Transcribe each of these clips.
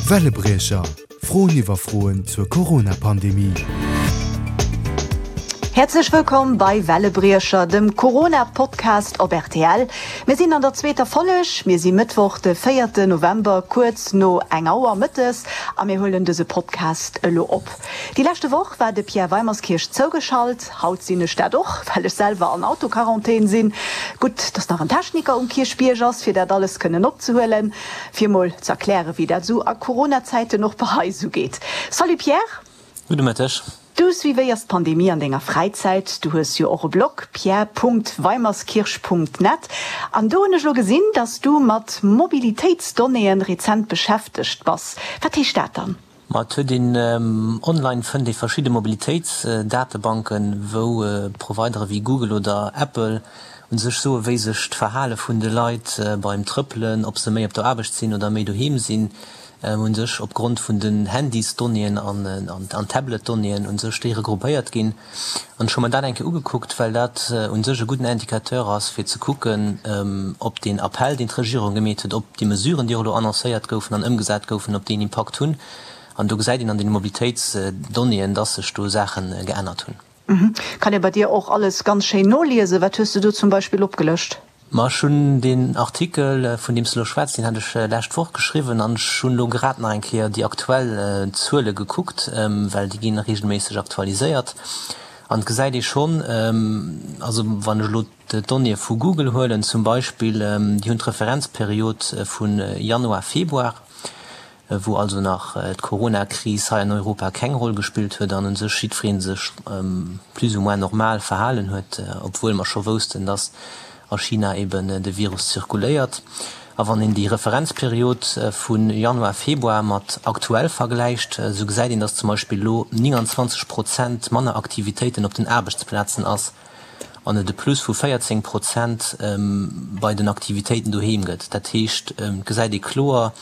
Wellebriecher, Froen iwwer Froen zur Corona-Pandemie. Häerzlech wëllkomm bei Wellebriecher, dem Corona-Podcast op rtl. Mir sinn an der zweeter Folleg. Mir si Mëttwoch, de véierte November, kuerz no eng Auer mëttes a mir huelen dëse Podcast elo op. Déi leschte Woch war de Pierre Weimerskirch zougeschalt. Haut sinn ech dat och, well ech selwer an Autoquarantän sinn. Gutt, dass nach en Techniker um Kierchbierg ass, fir dat alles kënnen opzehuelen. Fir mol ze erklären, wéi dat esou a Corona-Zäiten och bei eis esou geet. Salut Pierre! Gudde Mëtteg. Du suivéiers d'Pandemie an denger Fräizäit. Du hues jo och e Blog, pierre.weimerskirch.net. An do hunn ech elo gesinn, dass du mat Mobilitéitsdonnéeën rezent beschäftegt bass. Wat heescht dat dann? Ma et huet een online fënnt ee verschidde Mobilitéitsdatebanken, wou Providere wéi Google oder Apple u sech soe wéi sech d'Verhale vun de Leit beim Trëppelen, ob se méi op der Aarbecht sinn oder méi doheem sinn, u sech opgrond vun den Handysdonnéeën an Tabletdonnéeën u sech déi regroupéiert ginn. An ech hu mer dat eng Kéier ugekuckt, well dat u sech e gudden Indicateur ass, fir ze kucken, ob deen Appell, deen d'Regierung gemeet huet, ob déi Mesuren, déi och elo annoncéiert goufen an ëmgesat goufen, ob déi en Impakt hunn. An do gesäit een an deene Mobilitéitsdonnéeën, dass sech do Saache geännert hunn. Kann ee bei dir och alles ganz schéin noliesen? Wat hues de do zum Beispill opgelëscht? Ma ech hunn deen Artikel, vun deem s de elo schwätz, deen hat ech lescht Woch geschriwwen an ech hunn elo grad nach eng Kéier déi aktuell Zuele gekuckt, well déi ginn reegelméisseg aktualiséiert. An et gesäit ee schonn, also wann ech elo d'Donnéeë vu Google huelen zum Beispill, déi hunn d'Referenzperiod vu Januar, Februar, wou also nach d'Corona-Kris hei an Europa keng Roll gespillt huet an u sech jiddweree sech plus ou moins normal verhalen huet, obwuel mer scho woussten, dass a China eben de Virus zirkuléiert. A wann een déi Referenzperiod vu Januar, Februar mat aktuell vergläicht, esou gesäit een, dass zum Beispill elo 29 Prozent manner Aktivitéiten op den Aarbechtsplazen ass an et e Plus vu 14 Prozent bei den Aktivitéiten doheem gëtt. Dat heescht, et gesäit ee kloer,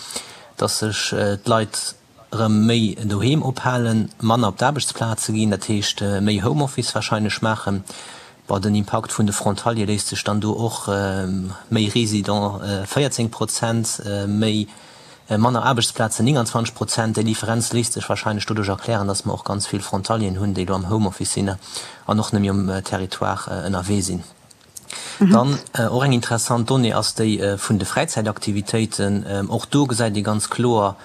dass sech d'Leit erëm méi doheem ophalen, manner op d'Aarbechtsplaze ginn, dat heescht méi Homeoffice warscheinlech maachen. Bon, den Impakt vun de Frontaliere léisst sech dann do och, méi Résidents 14 Prozent, méi Manner Aarbechtsplazen, 29 Prozent. Déi Differenz léisst sech warscheinlech doduerch erklären, datt mer och ganz vill Frontalieren hunn, déi elo am Homeoffice sinn an och net méi um Territoire ënnerwee sinn. Dann och eng interessant Donnée ass déi vun de Fräizäitaktivitéiten. Och do gesäit ee ganz kloer,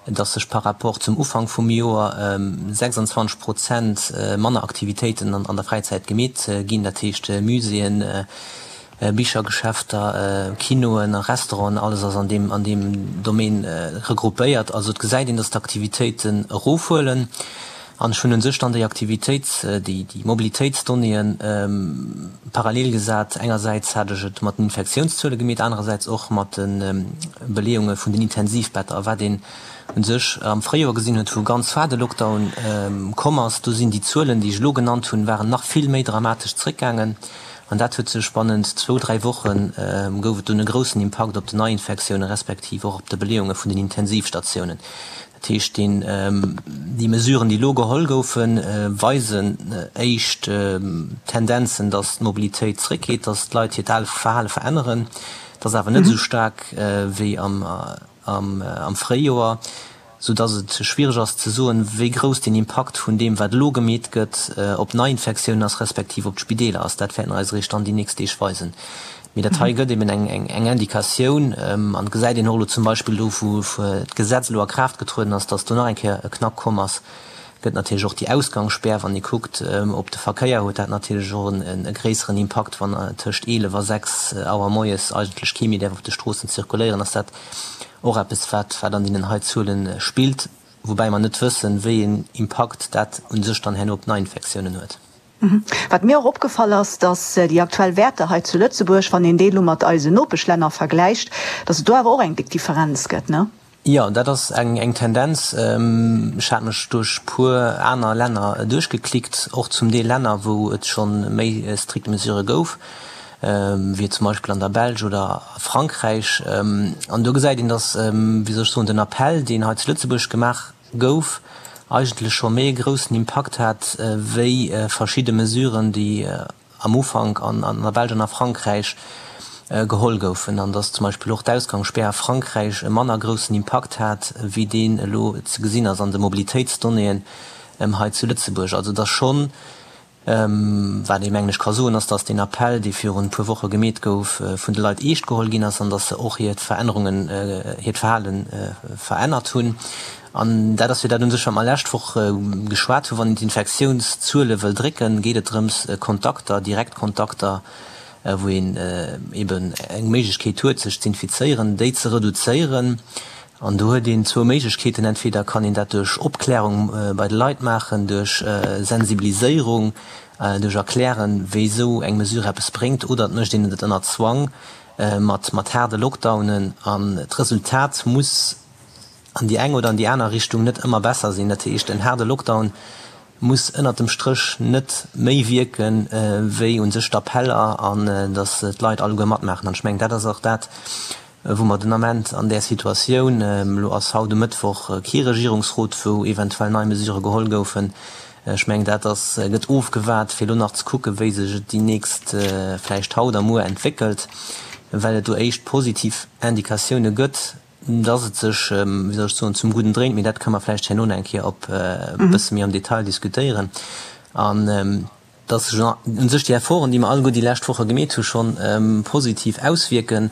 datt sech par rapport zum Ufank vum Joer 26 Prozent manner Aktivitéiten an der Fräizäit gemeet ginn, dat heescht Muséeën, Bichergeschäfter, Kinoen a Restauranten, alles ass an deem an deem Domaine regroupéiert. Also et gesäit een, datt d'Aktivitéiten erofhuelen. An ech hunn un sech dann déi Aktivitéits-, déi déi Mobilitéitsdonnéeën parallel gesat. Engersäits hat ech et mat den Infektiounszuele gemeet, anerersäits och mat de Beleeunge vun den Intensivbetter. A wat een un sech am Fréijoer gesinn huet, wou ganz far de Lockdown komm ass, do sinn déi Zuelen, déi ech elo genannt hunn, waren nach vill méi dramatesch zréckgaangen. An dat huet sech bannent zwou, dräi Woche gouf et dunn e groussen Impakt op den Neiinfektioune respektiv och op de Beleeunge vun den Intensivstatiounen. Dat heescht, deen, déi Mesuren, déi elo geholl goufen, weisen éischt Tendenzen, datt d'Mobilitéit zréckgeet, datt d'Leit hiert Verhale veränneren. Dat ass awer net esou staark wéi am. am Fréijoer, sou dass et schwiereg ass ze soen, wéi grouss den Impakt vun deem, wat elo gemeet gëtt, op Neiinfektiounen ass, respektiv op d'Spideeler ass. Dat wäerten eis eréischt dann déi nächst Deeg weisen. Mee dat hei gëtt eben eng Indikatioun an et gesäit een och elo zum Beispill do, wou d'Gesetz elo a Kraaft getrueden ass, dass do nach eng Kéier e Knack komm ass. Gëtt natierlech och déi Ausgangsspär, wann ee kuckt op de Verkéier, huet dat natierlech och e gréisseren Impakt, wann tëscht 11 a 6 Auer moies eigentlech kee méi däerf op de Stroossen zirkuléieren, ass dat och eppes, wat wat an deenen hei Zuele spillt, woubäi mer net wëssen, wéi een Impakt dat u sech dann herno op d'Neiinfektiounen huet. Wat mir och opgefall ass, dass déi aktuell Wäerter hei zu Lëtzebuerg, wann een déi elo mat eisen Nopeschlänner vergläicht, dass et do awer och eng déck Differenz gëtt, ne? Jo, dat ass eng Tendenz. Ech hat mech duerch puer aner Länner duerchgeklickt, och zum Deel Länner, wou et scho méi strikt Mesurë gouf, wéi zum Beispill an der Belsch oder a Frankräich. An do gesäit een, datt, wéi soll ech soen, den Appell, deen hei zu Lëtzebuerg gemaach gouf, eigentlech scho méi e groussen Impakt hat wéi verschidde Mesuren, déi am Ufank an der Belsch an a Frankräich. geholl goufen an dass zum Beispill och d'Ausgangsspär a Frankräich e manner groussen Impakt hat, wéi deen elo ze gesinn ass an de Mobilitéitsdonnéeën hei zu Lëtzebuerg. Also dass schonn, wat ee mengen ech ka soen, ass, dass deen Appell, dee virun e puer Woche gemeet gouf, vun de Leit eescht geholl ginn ass an dass se och hiert Verännerungen, hiert Verhale verännert hunn. An dat ass jo dat un sech, wat mer lescht Woch geschwat hunn, Wann een d'Infektiounszuele wëll drécken, geet et drëms, Kontakter, Direktkontakter, wou een eben eng Méiglechkeet huet sech z'infizéieren, déi ze reduzéieren. An do huet een zwou Méiglechkeeten, entweder kann een dat duerch Opklärung bei de Leit maachen, duerch Sensibiliséierung, duerch Erklären, wéi esou eng Mesure eppes bréngt, oder et mécht een et ënner Zwang mat mat haarde Lockdownen. An d'Resultat muss an déi eng oder an déi aner Richtung net ëmmer besser sinn. Dat heescht, en haarde Lockdown muss ënnert dem Stréch net méi wierken, wéi u sech d'Appeller an datt d'Leit alleguer matmaachen. An ech mengen, dat ass och dat, wou mer den Ament an där Situatioun, elo ass haut um Mëttwoch kee Regierungsrot, wou eventuell nei Mesurë geholl goufen, ech mengen, dat ass, gëtt ofgewaart, fir elo nach ze kucken, wéi sech et déi nächst, vläicht haut a muer entwéckelt, well et do éischt positiv Indikatioune gëtt. dass et sech, wéi soll ech soen, zum Gudden dréint, mee dat kënne mer vläicht herno nach eng Kéier op e bësse méi am Detail diskutéieren, an dass sech u sech déi Efforten, déi mer alleguer déi lescht Woche gemeet hu schonn positiv auswierken.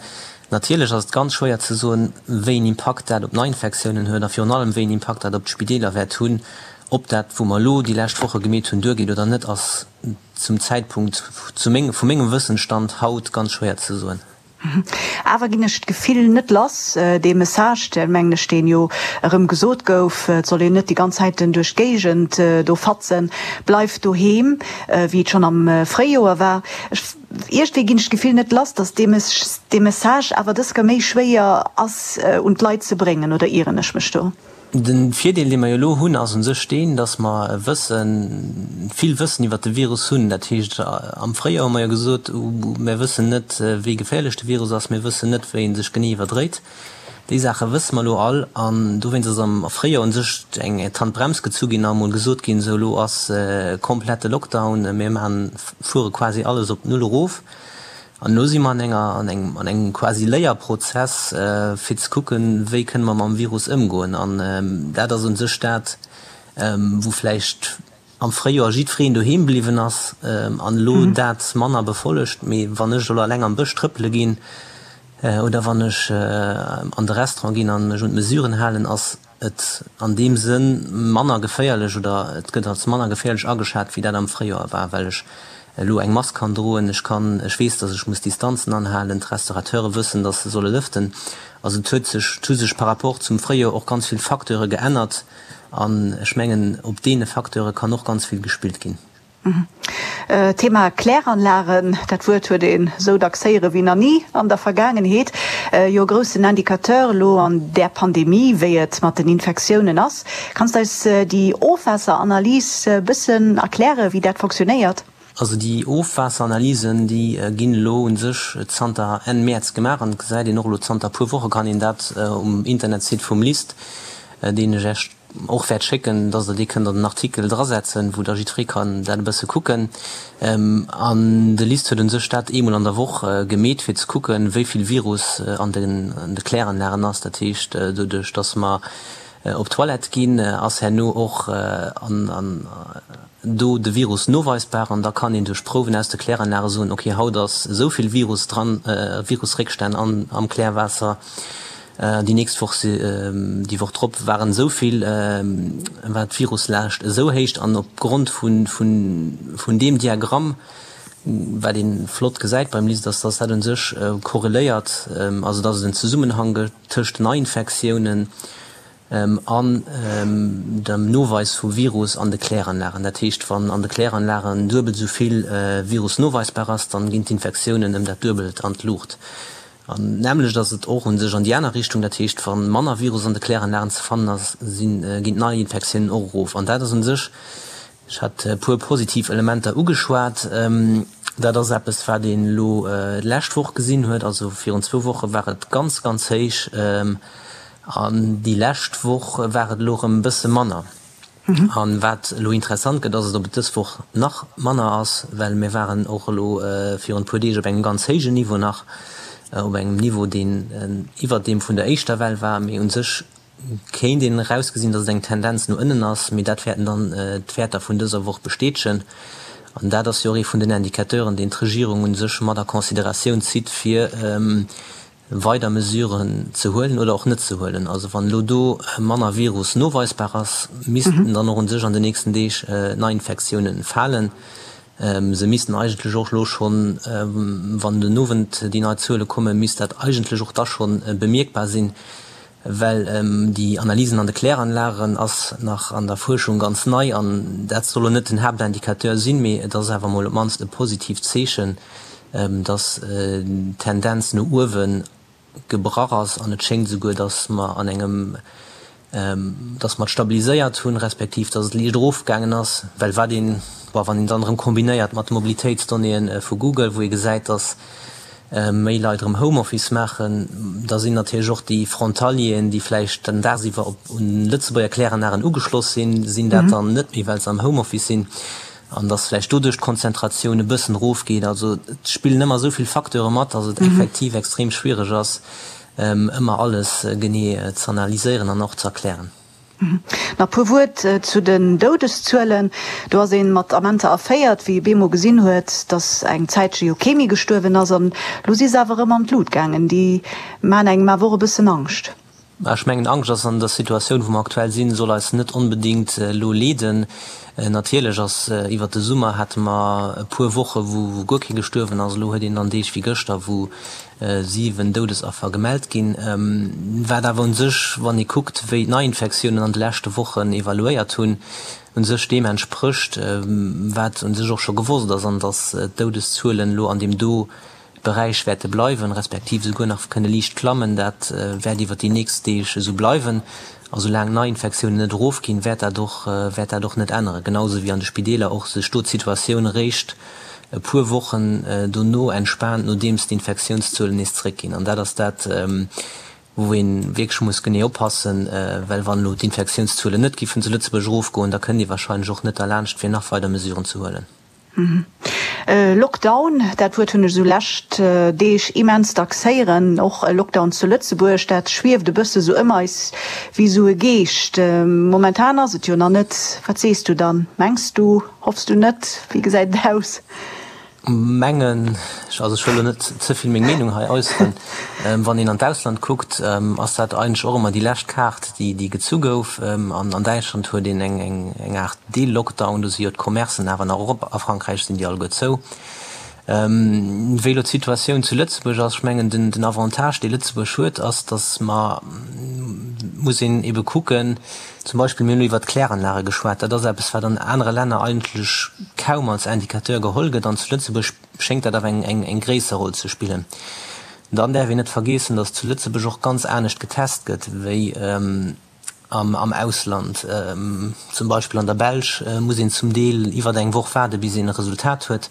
Natierlech ass et ganz schwéier ze soen, wéi een Impakt dat op d'Neiinfektiounen huet a virun allem wéi een Impakt dat op d'Spideeler wäert hunn. Ob dat, wou mer elo déi lescht Woche gemeet hunn, duergeet oder net, ass zum Zäitpunkt, zu mengem, vu mengem Wëssensstand haut, ganz schwéier ze soen. Awer ginn ech d'Gefill net lass, dee Message, deen, mengen ech, deen jo erëm gesot gouf, et soll een net déi ganz Zäiten duerch d'Géigend do fatzen, bleif doheem, wéi et schonn am Fréijoer war. Ech, iergendwéi ginn ech d'Gefill net lass, datt dee dee Message awer dës Kéier méi schwéier ass un d'Leit ze bréngen, oder ieren ech mech do? De Virdeel, dee mer jo elo hunn, ass u sech deen, dass mer wëssen, vill Wëssen iwwert de Virus hunn. Dat heescht, am Fréijoer hu mer jo gesot, mir wëssen net, wéi geféierlech de Virus ass, mir wëssen net, wéi e sech genee iwwerdréit. Déi Saache wësse mer elo all. An dowéinst ass am Fréijoer u sech eng d'Handbrems gezu ginn a emol gesot ginn, sou elo ass komplette Lockdown, mir maachen, fuere quasi alles op Null erof. An elo si mer an enger, an engem, an engem quasi Léierprozess, fir ze kucken, wéi kënne mer mam Virus ëmgoen. An dat ass u sech dat, wou vläicht am Fréijoer jiddwereen doheem bliwwen ass an elo dat manner befollegt. Mee wann ech elo eleng am Bësch trëppele ginn oder wann ech an de Restaurant ginn a mech un d'Mesuren halen, ass et an deem Sënn manner geféierlech oder et gëtt als manner geféierlech ageschat, wéi dat am Fréijoer war, well ech elo eng Mask kann droen, ech kann, ech weess, datt ech muss Distanzen anhalen, d'Restaurateure wëssen, datt se solle lëften. Also et huet sech, et hu sech par rapport zum Fréijoer och ganz vill Facteure geännert an ech mengen, op deene Facteure kann och ganz vill gespillt ginn. Thema Kläranlagen, dat Wuert huet een esou dacks héiere wéi nach ni an der Vergaangenheet. Jo e groussen Indicateur elo an där Pandemie, wéi et mat den Infektiounen ass. Kanns de eis déi Ofwaasseranalys e bëssen erklären, wéi dat fonctionnéiert? Also déi Ofwaasseranalysen, déi ginn elo u sech zanter Enn Mäerz gemaach an et gesäit een och elo zanter e puer Woche kann een dat um Internetsite vum LIST, deen ech Iech och wäert schécken, dass Der dee kënnt an den Artikel drasetzen, wou da jiddweree kann dat e bësse kucken. An de LIST huet u sech dat eemol an der Woch gemeet, fir ze kucken, wéi vill Virus an de Kläranlagen ass. Dat heescht, doduerch dass mer op d'Toilette ginn, ass herno och an do de Virus noweisbar. An da kann een duerch Prouwen aus de Kläranlage soen, okay, haut ass esou vill Virus dran, Virusréckstänn am Klärwaasser. Déi nächst Woch, déi Woch drop waren esou vill, war d'Viruslaascht esou héich an opgrond vun deem Diagramm, wat ee flott gesäit beim LIST, ass, dass dat u sech korreléiert, also dass et en Zesummenhang gëtt tëscht Neiinfektiounen an dem Noweis vu Virus an de Kläranlagen. Dat heescht, wann an de Kläranlagen duebel esou vill Virus noweisbar ass, dann ginn d'Infektiounen ëm dat Duebelt an d'Luucht. An d'nämmlecht ass et och u sech an déi aner Richtung, dat heescht, wa manner Virus an de Kläranlagen ze fannen ass, sinn, ginn d'Neiinfektiounen och erof. An dat ass u sech, ech hat e puer positiv Elementer ugeschwat, dat ass eppes, wat een elo d'lescht Woch gesinn huet. Also virun zwou Woche war et ganz, ganz héich an déi lescht Woch war et elo erëm e bësse manner. An wat elo interessant gëtt, ass et, ob et dës Woch nach manner ass, well mir waren och elo virun e puer Deeg op engem ganz héijen Niveau nach. Op engem Niveau, deen iwwert deem vun der éischter Well war. Mee u sech kéint een erausgesinn, datt et eng Tendenz no ënnen ass. Mee dat wäerten dann d'Wäerter vun dëser Woch bestätegen. An dat ass jo och ee vun den Indicateuren, deen d'Regierung u sech mat a Consideratioun zitt, fir weider Mesuren ze huelen oder och net ze huelen. Also wann elo do manner Virus noweisbar ass, missten dann och u sech an den nächsten Deeg d'Neiinfektiounen falen. Se missten eigentlech och elo schonn, wann den Owend déi nei Zuele kommen, misst dat eigentlech och da schonn bemierkbar sinn, well déi Analysen an de Kläranlagen ass nach an der Fuerschung ganz nei an dat soll elo net den Haaptindicateur sinn, mee et ass awer emol op d'mannst e positiivt Zeechen, dass d'Tendenz no uewen gebrach ass an et schéngt esouguer, datt mer an engem, datt mer et stabiliséiert hunn, respektiv datt et liicht erofgaangen ass, well wat een, bon, wann een dann erëm kombinéiert mat de Mobilitéitsdonnéeën vu Google, wou ee gesäit, datt méi Leit erëm Homeoffice maachen, da sinn natierlech och déi Frontalieren, déi vläicht dann dagsiwwer op un Lëtzebuerger Kläranlagen ugeschloss sinn, sinn dat dann net méi, well se am Homeoffice sinn. An dass vläicht doduerch d'Konzentratioun e bëssen erofgeet. Also et spillen ëmmer esou vill Facteure mat, dass et effektiv extrem schwiereg ass, ëmmer alles genee z'analyséieren an och z'erklären. Nach e puer Wuert zu den Doudeszuelen. Do ass ee mat Amenter erféiert, wéi ee bemol gesinn huet, dass eng Zäitche jo kee méi gestuerwen ass. An elo si se awer erëm an d'Lut gaangen. Déi maachen engem awer och e bëssen Angscht. Ech mengen, Angscht ass an der Situatioun, wou mer aktuell sinn, soll eis net onbedéngt elo leeden. Natierlech ass, iwwert de Summer hate mer e puer Woche wou guer kee gestuerwen ass. Elo huet een dann Deeg wéi gëschter, wou 7 Doudesaffer gemellt ginn. Wat awer u sech, wann ee kuckt, wéi d'Neiinfektiounen an de leschte Wochen evaluéiert hunn, u sech deem entsprécht, wat u sech och scho gewosst ass, an datt d'Doudeszuelen elo an deem do Beräich wäerte bleiwen, respektiv esouguer nach kënne liicht klammen. Dat wäert iwwer déi nächst Deeg esou bleiwen. A soulaang d'Neiinfektiounen net erofginn, wäert dat och wäert dat och net änneren. Genau esou wéi an de Spideeler och sech do d'Situatioun eréischt e puer Wochen dono entspaant, nodeems d'Infektiounszuelen nees zeréckginn. An dat ass dat, wou ee wierklech muss genee oppassen, well wann elo d'Infektiounszuelen net giffen zu Lëtzebuerg erofgoen, da kënnt ee warscheinlech och net derlaanscht, fir nach weider Mesuren ze huelen. Lockdown, dat Wuert hunn ech esou lescht Deeg immens dacks héieren. Och e Lockdown zu Lëtzebuerg, dat schwieft e bësse sou ëm eis wéi esou e Geescht. Momentan ass et jo nach net. Wat sees du dann? Mengs du? Hoffs du net? Wéi gesäit et aus? Mengen ech, also ech wëll elo net ze vill meng Meenung hei äusseren, wann een an d'Ausland kuckt, ass dat eigentlech och ëmmer déi lescht Kaart, déi déi gezu gouf. An an Däitschland huet een eng eng Aart Deel-Lockdown, do si jo d'Commercen awer nach erop, a Frankräich sinn déi alleguer zou. Wéi elo d'Situatioun zu Lëtzebuerg ass, ech mengen den den Avantage dee Lëtzebuerg huet, ass, datt mer, muss een ebe kucken, Zum Beispill, mir hunn elo iwwert d'Kläranlage geschwat, dat ass eppes, wat an anere Länner eigentlech kaum als Indicateur geholl gëtt, an zu Lëtzebuerg schéngt dat awer eng gréisser Roll ze spillen. Dann däerf een net vergeessen, datt zu Lëtzebuerg och ganz anescht getest gëtt wéi am Ausland. Zum Beispill an der Belsch muss een zum Deel iwwer eng Woch waarde bis een e Resultat huet.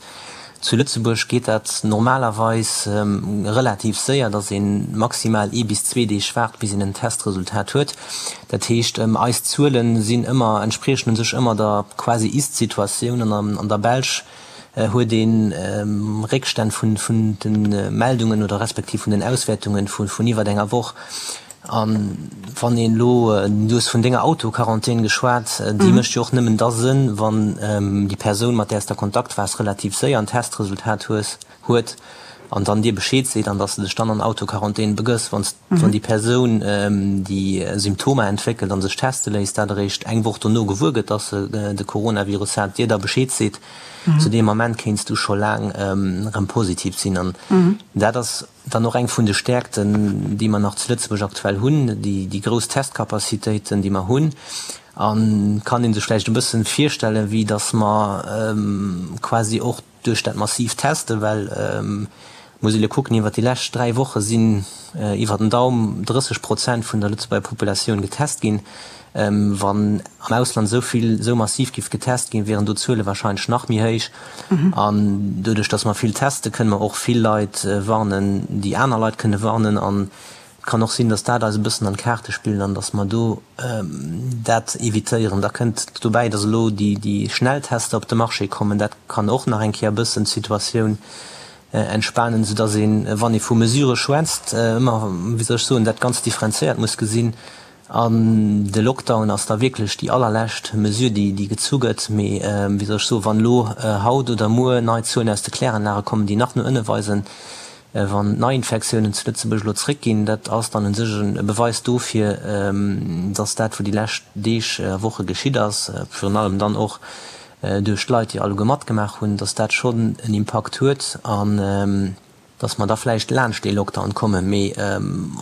Zu Lëtzebuerg geet dat normalerweis relativ séier, datt ee maximal ee bis zwee Deeg waart, bis een en Testresultat huet. Dat heescht, eis Zuele sinn ëmmer, entspriechen u sech ëmmer der quasi Ist-Situatioun. An an der Belsch huet ee Réckstänn vun de Meldungen oder respektiv vun den Auswäertunge vun iwwer enger Woch. A wann een elo, du hues vun denger Autoquarantän geschwat, déi mécht jo och nëmmen da Sënn, wann déi Persoun, mat där s de a Kontakt waars, relativ séier en Testresultat hues, huet an dann dir Bescheed seet an dass de dech dann an Autoquarantän begëss. Wann s, wann déi Persoun, déi Symptomer entwéckelt a sech teste léisst, dat eréischt eng Woch dono gewuer gëtt, dass se de Coronavirus hat, dir da Bescheed seet, zu deem Ament kéints du scho laang erëm positiv sinn. An dat ass Dann och eng vun de Stäerkten, déi mer nach zu Lëtzebuerg aktuell hunn, déi grouss Testcapacitéiten, déi mer hunn. A kann ee sech vläicht e bësse virstellen, wéi datt mer quasi och duerch dat massiivt Testen, well muss ee elo kucken, iwwert déi lescht 3 Woche sinn iwwer den Daum 30 Prozent vun der Lëtzebuerger Populatioun getest ginn. Wann am Ausland esou vill, esou massiv giff getest ginn, wieren do d'Zuele wahrscheinlech nach méi héich. An doduerch, datt mer vill teste, kënne mer och vill Leit warnen, déi aner Leit kënne warnen. An et kann och sinn, datt dat eis e bëssen an d'Kaarte spillt an datt mer do dat evitéieren. Da kënnt dobäi, datt elo déi Schnelltester op de Marché kommen. Dat kann och nach eng Kéier e bëssen d'Situatioun. Entspanen, soudass een, wann ee vu Mesurë schwätzt, ëmmer, wéi soll ech soen, dat Ganzt differenzéiert muss gesinn. An de Lockdown ass da wierklech déi allerlescht Mesure, déi, déi gezu gëtt. Mee, wéi soll ech soen, wann elo haut oder muer nei Zuelen aus de Kläranlage kommen, déi nach no ënne weisen, wann d'Neiinfektiounen zu Lëtzebuerg elo zréckginn, dat ass dann u sech e Beweis dofir, dass dat, wou déi lescht Deeg a Woche geschitt ass, virun allem dann och duerch d'Leit, déi alleguer matgemaach hunn, dass dat schonn en Impakt huet an dass mer da vläicht laanscht dee Lockdown kommen. Mee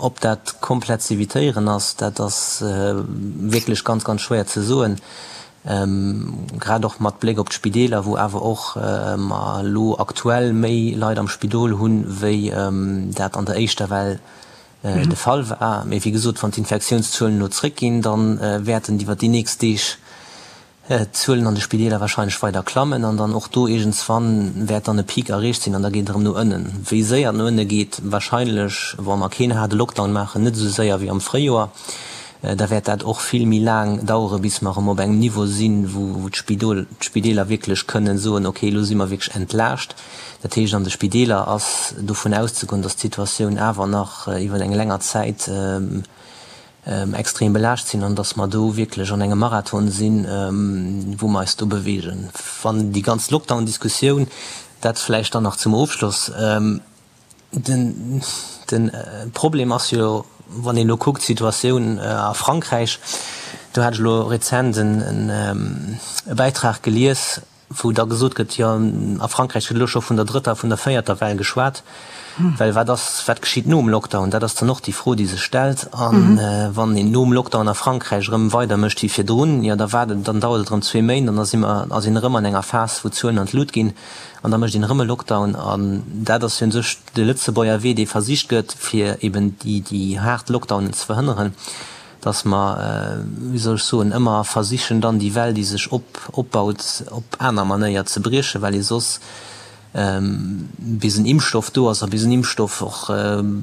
ob dat komplett z'evitéieren ass, dat ass wierklech ganz, ganz schwéier ze soen, grad och mat Bléck op d'Spideeler, wou awer och mer elo aktuell méi Leit am Spidol hunn, wéi dat an der éischter Well de Fall war. Mee wéi gesot, wann d'Infektiounszuelen elo zréckginn, da wäerten iwwer déi nächst Deeg d'Zuelen an de Spideeler wahrscheinlech weider klammen an dann och do iergendswann wäert dann e Peak erreecht sinn an da geet et erëm no ënnen. Wéi séier et no ënne geet, wahrscheinlech, wa mer keen haarde Lockdown maachen, net esou séier wéi am Fréijoer. Da wäert dat och vill méi laang dauere bis mer erëm op engem Niveau sinn, wou d'Spideeler wierklech kënnen soen, okay, elo si mer wierklech entlaascht. Dat heescht, an de Spideeler ass dovun auszegoen, datt d'Situatioun awer nach iwwer eng länger Zäit extrem belaascht sinn an dass mer do wierklech an engem Marathon sinn, wou mer eis do bewegen. Wann déi ganz Lockdown-Diskussioun, dat vläicht dann nach zum Ofschloss, den Problem ass jo, wann een elo kuckt d'Situatioun a Frankräich, do hat ech elo rezent e Bäitrag gelies, wou da gesot gëtt, jo a Frankräich gëtt elo scho vun der drëtter, vun der véierter Well geschwat, well wat ass, wat geschitt nom Lockdown? Dat ass dann och déi Fro, déi sech stellt. A wann een nom Lockdown a Frankräich erëm weider mécht wéi virdrun, jo da waart et, dann dauert et erëm zwee Méint an da si mer, ass een erëm an enger Phas, wou d'Zuelen an d'Lut ginn an da mécht een erëm e Lockdown. An dat ass jo u sech de Lëtzebuerger Wee, dee versicht gëtt, fir eben déi, déi haart Lockdownen ze verhënneren. dass mer, wéi soll ech soen, ëmmer versichen dann déi Well, déi sech op opbaut, op aner Manéier ze briechen, well ee soss, bis en Impfstoff do ass a bis en Impfstoff och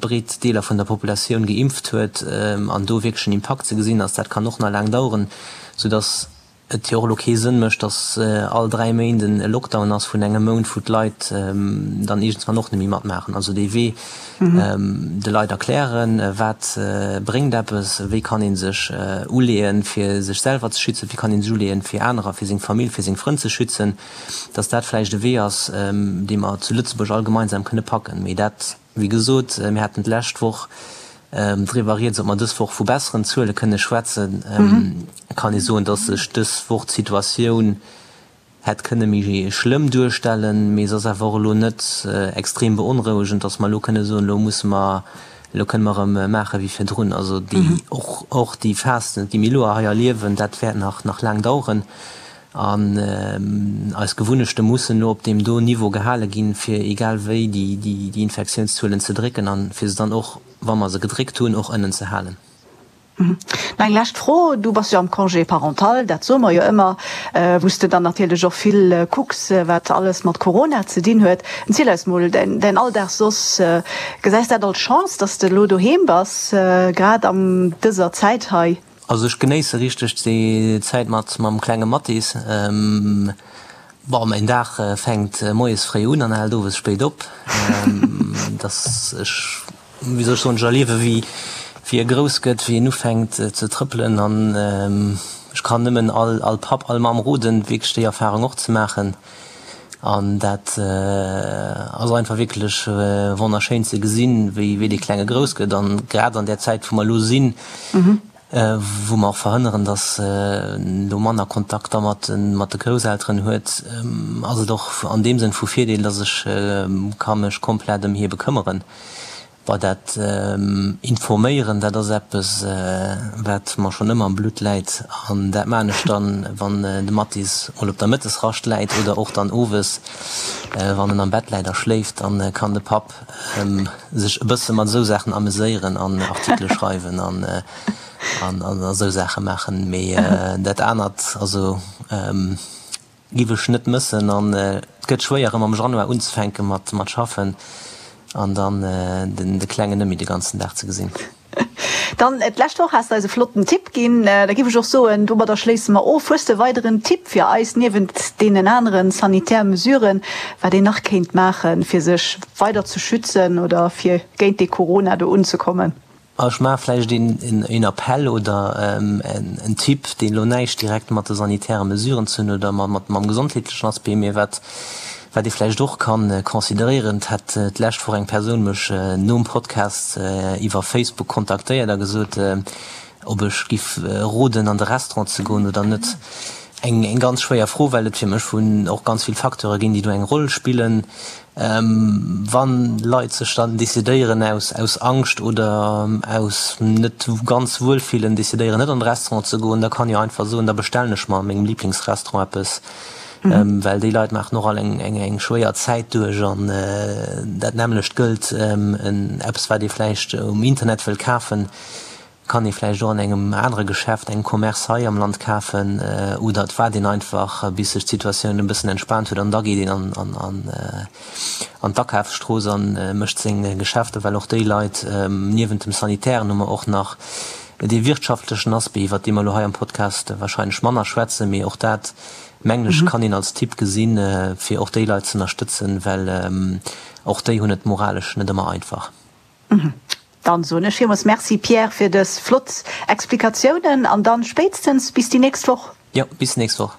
breet Deeler vun der Populatioun geimpft huet an do wierklech en Impakt ze gesinn ass, dat kann och nach laang daueren, soudass et jo och elo kee Sënn mécht, datt all 3 Méint e Lockdown ass vun engem Mount, wou d'Leit dann iergendwann och net méi matmaachen. Also dee Wee de Leit erklären, wat bréngt eppes, wéi kann ee sech uleeën, fir sech selwer ze schützen, wéi kann ee sech uleeën, fir anerer, fir seng Famill, fir seng Frënn ze schützen, datt dat vläicht e Wee ass, dee mer zu Lëtzebuerg all gemeinsam kënne packen. Mee dat. Wéi gesot, mir haten d'lescht Woch driwwer rieds, ob mer dës Woch vu besseren Zuele kënne schwätzen. Kann ee soen, dass sech dës Woch d'Situatioun hätt kënne méi schlëmm duerstellen, mee se ass awer och elo net extrem beonrouegend, dass mer elo kënne soen, elo musse mer, elo kënne mer erëm maache wéi virdrun. Also déi, och, och déi Phas, déi mir elo hei erliewen, dat wäert nach, nach laang daueren. An eis Gewunnechte mussen elo op deem do Niveau gehale ginn, fir egal wéi déi Infektiounszuelen ze drécken an fir se dann och, wa mer se gedréckt hunn, och ënnen ze halen. Nach eng lescht Fro, Du bass jo am Congé parental, dat soe mer jo ëmmer, wou s de dann natierlech och vill kucks, wat alles mat Corona ze dinn huet. Erziel eis mol däin Alldag soss. Gesäis dat als Chance, dass de elo doheem bass, grad an dëser Zäit hei? Also ech genéisse richteg déi Zäit mat mam klenge Mathis. Bon, mäin Dag fänkt moies fréi un an hält owes spéit op. Dass ech, wéi soll ech soen, ech erliewe wéi wéi e grouss gëtt, wéi en ufänkt ze trëppelen an ech kann nëmmen all all Papp, all Mamm roden, wierklech déi Erfarung och ze maachen. An dat ass einfach wierklech wonnerschéin ze gesinn, wéi wéi dee Klenge grouss gëtt. An grad an där Zäit, wou mer elo sinn, wou mer och verhënneren, datt en elo manner Kontakter mat mat de Grousselteren huet, ass et och an deem Sënn vu Virdeel, datt ech ka mech komplett ëm hie bekëmmeren. Bei dat Informéieren, dat ass eppes, wat mer schonn ëmmer am Blutt läit. An dat maachen ech dann, wann de Mathis mol op der Mëttesrascht läit oder och dann owes, wann en am Bett läit a schléift. Dann kann de Papp sech e bësse mat esou Saachen ameséieren an Artikele schreiwen an esou Saache maachen. Mee dat anert, also. Giff ech net mëssen an et gëtt schwéier erëm am Januar unzefänken mat mat schaffen an dann den de Klengen net méi de ganzen Dag ze gesinn. Dann, d'lescht Woch has de eis e flotten Tipp ginn. Da giff ech och soen, domadder schléisse mer of. Hues de e weideren Tipp fir eis, niewent deenen aneren sanitär Mesuren, wat een nach kéint maachen, fir sech weider ze schützen oder fir géint dee Corona do unzekommen? Ech maache vläicht een Appell oder en Tipp, deen elo näischt direkt mat de sanitäre Mesuren ze hunn oder mam gesondheetlechen Aspect, mee wat wat ee vläicht och ka consideréieren. Et hat d'lescht Woch eng Persoun mech nom Podcast iwwer Facebook kontaktéiert a gesot, ob ech giff roden an de Restaurant ze goen oder net. Eng ganz schwéier Fro, well et fir mech vun och ganz vill Facteure ginn, déi do eng Roll spillen. Wann Leit sech dann decidéieren aus aus Angscht oder aus net ganz Wuelfillen decidéieren net an de Restaurant ze goen, da kann jo einfach soen, da bestellen ech mer a mengem Liblingsrestaurant eppes, well déi Leit maachen och all eng eng schwéier Zäit duerch an dat nämmlecht gëllt eppes wat ee vläicht um Internet wëll kafen. Kann ee vläicht och an engem anere Geschäft, engem Commerce hei am Land kafen oder et waart een einfach bis sech d'Situatioun e bëssen entspaant huet an da geet een an d'Akafsstrooss a mécht seng Geschäfter, well och déi Leit, niewent dem sanitären hu mer och nach dee wirtschaftlechen Aspect, iwwert dee mer elo hei am Podcast wahrscheinlech manner schwätzen, mee och dat, mengen ech, kann een als Tipp gesinn, fir och déi Leit z'ënnerstëtzen, well och déi hunn et moralesch net ëmmer einfach. Dann soen ech villmools Merci Pierre fir dës flott Explikatiounen an dann spéitstens bis déi nächst Woch. Jo, bis nächst Woch.